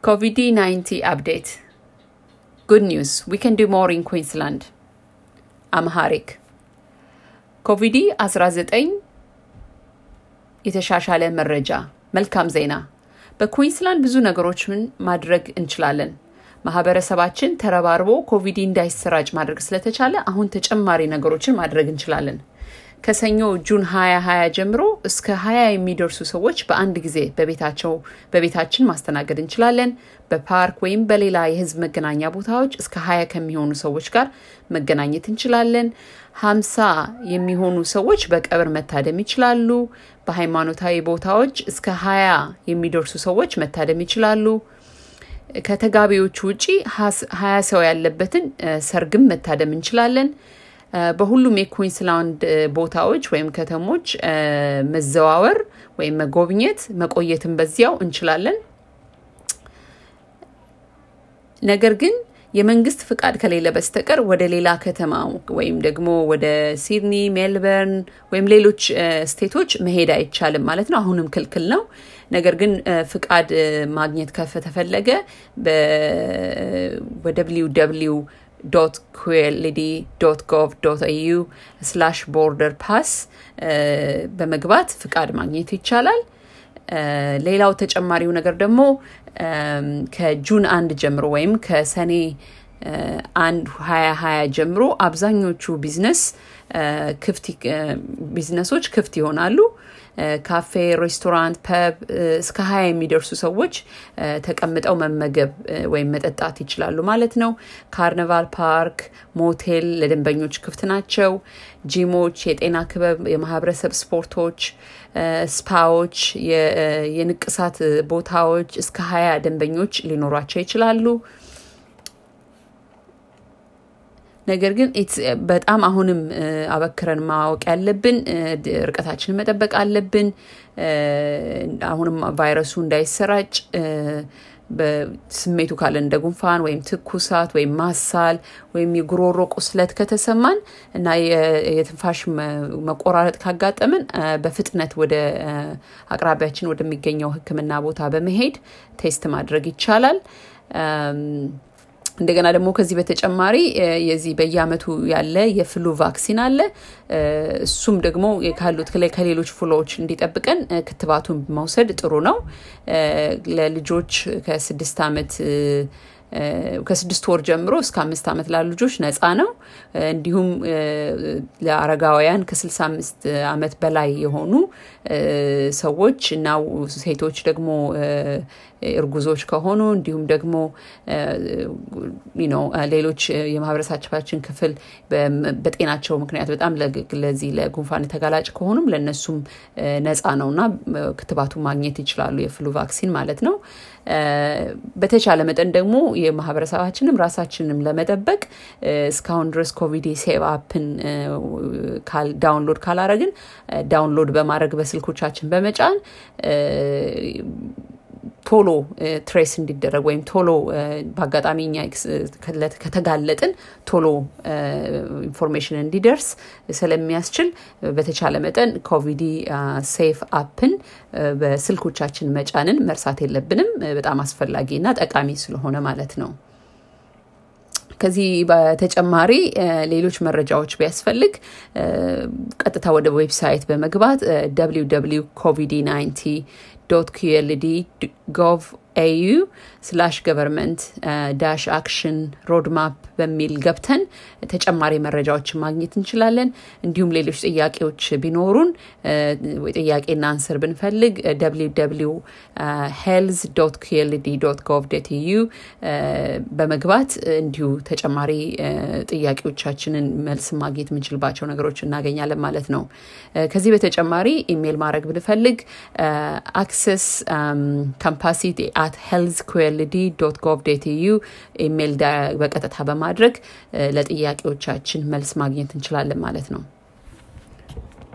COVID-19 update. Good news, we can do more in Queensland. Amharic. COVID-19 የተሻሻለ መረጃ መልካም ዜና በኩዊንስላንድ ብዙ ነገሮችን ማድረግ እንችላለን ማህበረሰባችን ተረባርቦ ኮቪድ እንዳይሰራጭ ማድረግ ስለተቻለ አሁን ተጨማሪ ነገሮችን ማድረግ እንችላለን ከሰኞ ጁን 2020 ጀምሮ እስከ 20 የሚደርሱ ሰዎች በአንድ ጊዜ በቤታችን ማስተናገድ እንችላለን በፓርክ ወይም በሌላ የህዝብ መገናኛ ቦታዎች እስከ 20 ከሚሆኑ ሰዎች ጋር መገናኘት እንችላለን 50 የሚሆኑ ሰዎች በቀብር መታደም ይችላሉ በሃይማኖታዊ ቦታዎች እስከ 20 የሚደርሱ ሰዎች መታደም ይችላሉ ከተጋቢዎች ውጪ 20 ሰው ያለበትን ሰርግም መታደም እንችላለን በሁሉም የኩዊንስላንድ ቦታዎች ወይም ከተሞች መዘዋወር ወይም መጎብኘት መቆየትን በዚያው እንችላለን ነገር ግን የመንግስት ፍቃድ ከሌለ በስተቀር ወደ ሌላ ከተማ ወይም ደግሞ ወደ ሲድኒ ሜልበርን ወይም ሌሎች ስቴቶች መሄድ አይቻልም ማለት ነው አሁንም ክልክል ነው ነገር ግን ፍቃድ ማግኘት ከተፈለገ www.qld.gov.au/borderpass በመግባት ፍቃድ ማግኘት ይቻላል ሌላው ተጨማሪው ነገር ደግሞ ከጁን 1 ጀምሮ ወይም ከሰኔ 1 2020 ጀምሮ አብዛኞቹ ቢዝነሶች ክፍት ይሆናሉ ካፌ ሬስቶራንት ፐብ እስከ 20 የሚደርሱ ሰዎች ተቀምጠው መመገብ ወይም መጠጣት ይችላሉ ማለት ነው ካርኒቫል ፓርክ ሞቴል ለደንበኞች ክፍት ናቸው ጂሞች የጤና ክበብ የማህበረሰብ ስፖርቶች ስፓዎች የንቅሳት ቦታዎች እስከ 20 ደንበኞች ሊኖራቸው ይችላሉ ነገር ግን በጣም አሁንም አበክረን ማወቅ ያለብን ርቀታችንን መጠበቅ አለብን አሁንም ቫይረሱ እንዳይሰራጭ በስሜቱ ካለ እንደ ጉንፋን ወይም ትኩሳት ወይም ማሳል ወይም የጉሮሮ ቁስለት ከተሰማን እና የትንፋሽ መቆራረጥ ካጋጠመን በፍጥነት ወደ አቅራቢያችን ወደሚገኘው ሕክምና ቦታ በመሄድ ቴስት ማድረግ ይቻላል እንደገና ደግሞ ከዚህ በተጨማሪ የዚህ በየአመቱ ያለ የፍሉ ቫክሲን አለ እሱም ደግሞ ካሉት ከሌሎች ፍሎዎች እንዲጠብቀን ክትባቱን መውሰድ ጥሩ ነው ለልጆች ከ6 ወር ጀምሮ እስከ 5 አመት ላሉ ልጆች ነፃ ነው እንዲሁም ለአረጋውያን ከ65 አመት በላይ የሆኑ ሰዎች እና ሴቶች ደግሞ እርጉዞች ከሆኑ እንዲሁም ደግሞ ሌሎች የማህበረሰባችን ክፍል በጤናቸው ምክንያት በጣም ለዚህ ለጉንፋን ተጋላጭ ከሆኑም ለነሱም ነፃ ነውና ክትባቱ ማግኘት ይችላሉ የፍሉ ቫክሲን ማለት ነው በተቻለ መጠን ደግሞ የማህበረሰባችንም ራሳችንንም ለመጠበቅ እስካሁን ድረስ ኮቪድ ሴቭ አፕን ዳውንሎድ ካላረግን ዳውንሎድ በማድረግ በስልኮቻችን በመጫን ቶሎ ትሬስ እንዲደረግ ወይም ቶሎ በአጋጣሚኛ ከተጋለጥን ቶሎ ኢንፎርሜሽን እንዲደርስ ስለሚያስችል በተቻለ መጠን ኮቪድ ሴፍ አፕን በስልኮቻችን መጫንን መርሳት የለብንም በጣም አስፈላጊና ጠቃሚ ስለሆነ ማለት ነው ከዚህ በተጨማሪ ሌሎች መረጃዎች ቢያስፈልግ ቀጥታ ወደ ዌብሳይት በመግባት www.qld.gov.au/government-action-roadmap በሚል ገብተን ተጨማሪ መረጃዎችን ማግኘት እንችላለን እንዲሁም ሌሎች ጥያቄዎች ቢኖሩን ጥያቄና አንሰር ብንፈልግ www.health.qld.gov.au በመግባት እንዲሁ ተጨማሪ ጥያቄዎቻችንን መልስ ማግኘት የምንችልባቸው ነገሮች እናገኛለን ማለት ነው ከዚህ በተጨማሪ ኢሜል ማድረግ ብንፈልግ access capacity@healthqld.gov.au ኢሜል በቀጥታ በማድረግ ለጥያቄዎቻችን መልስ ማግኘት እንችላለን ማለት ነው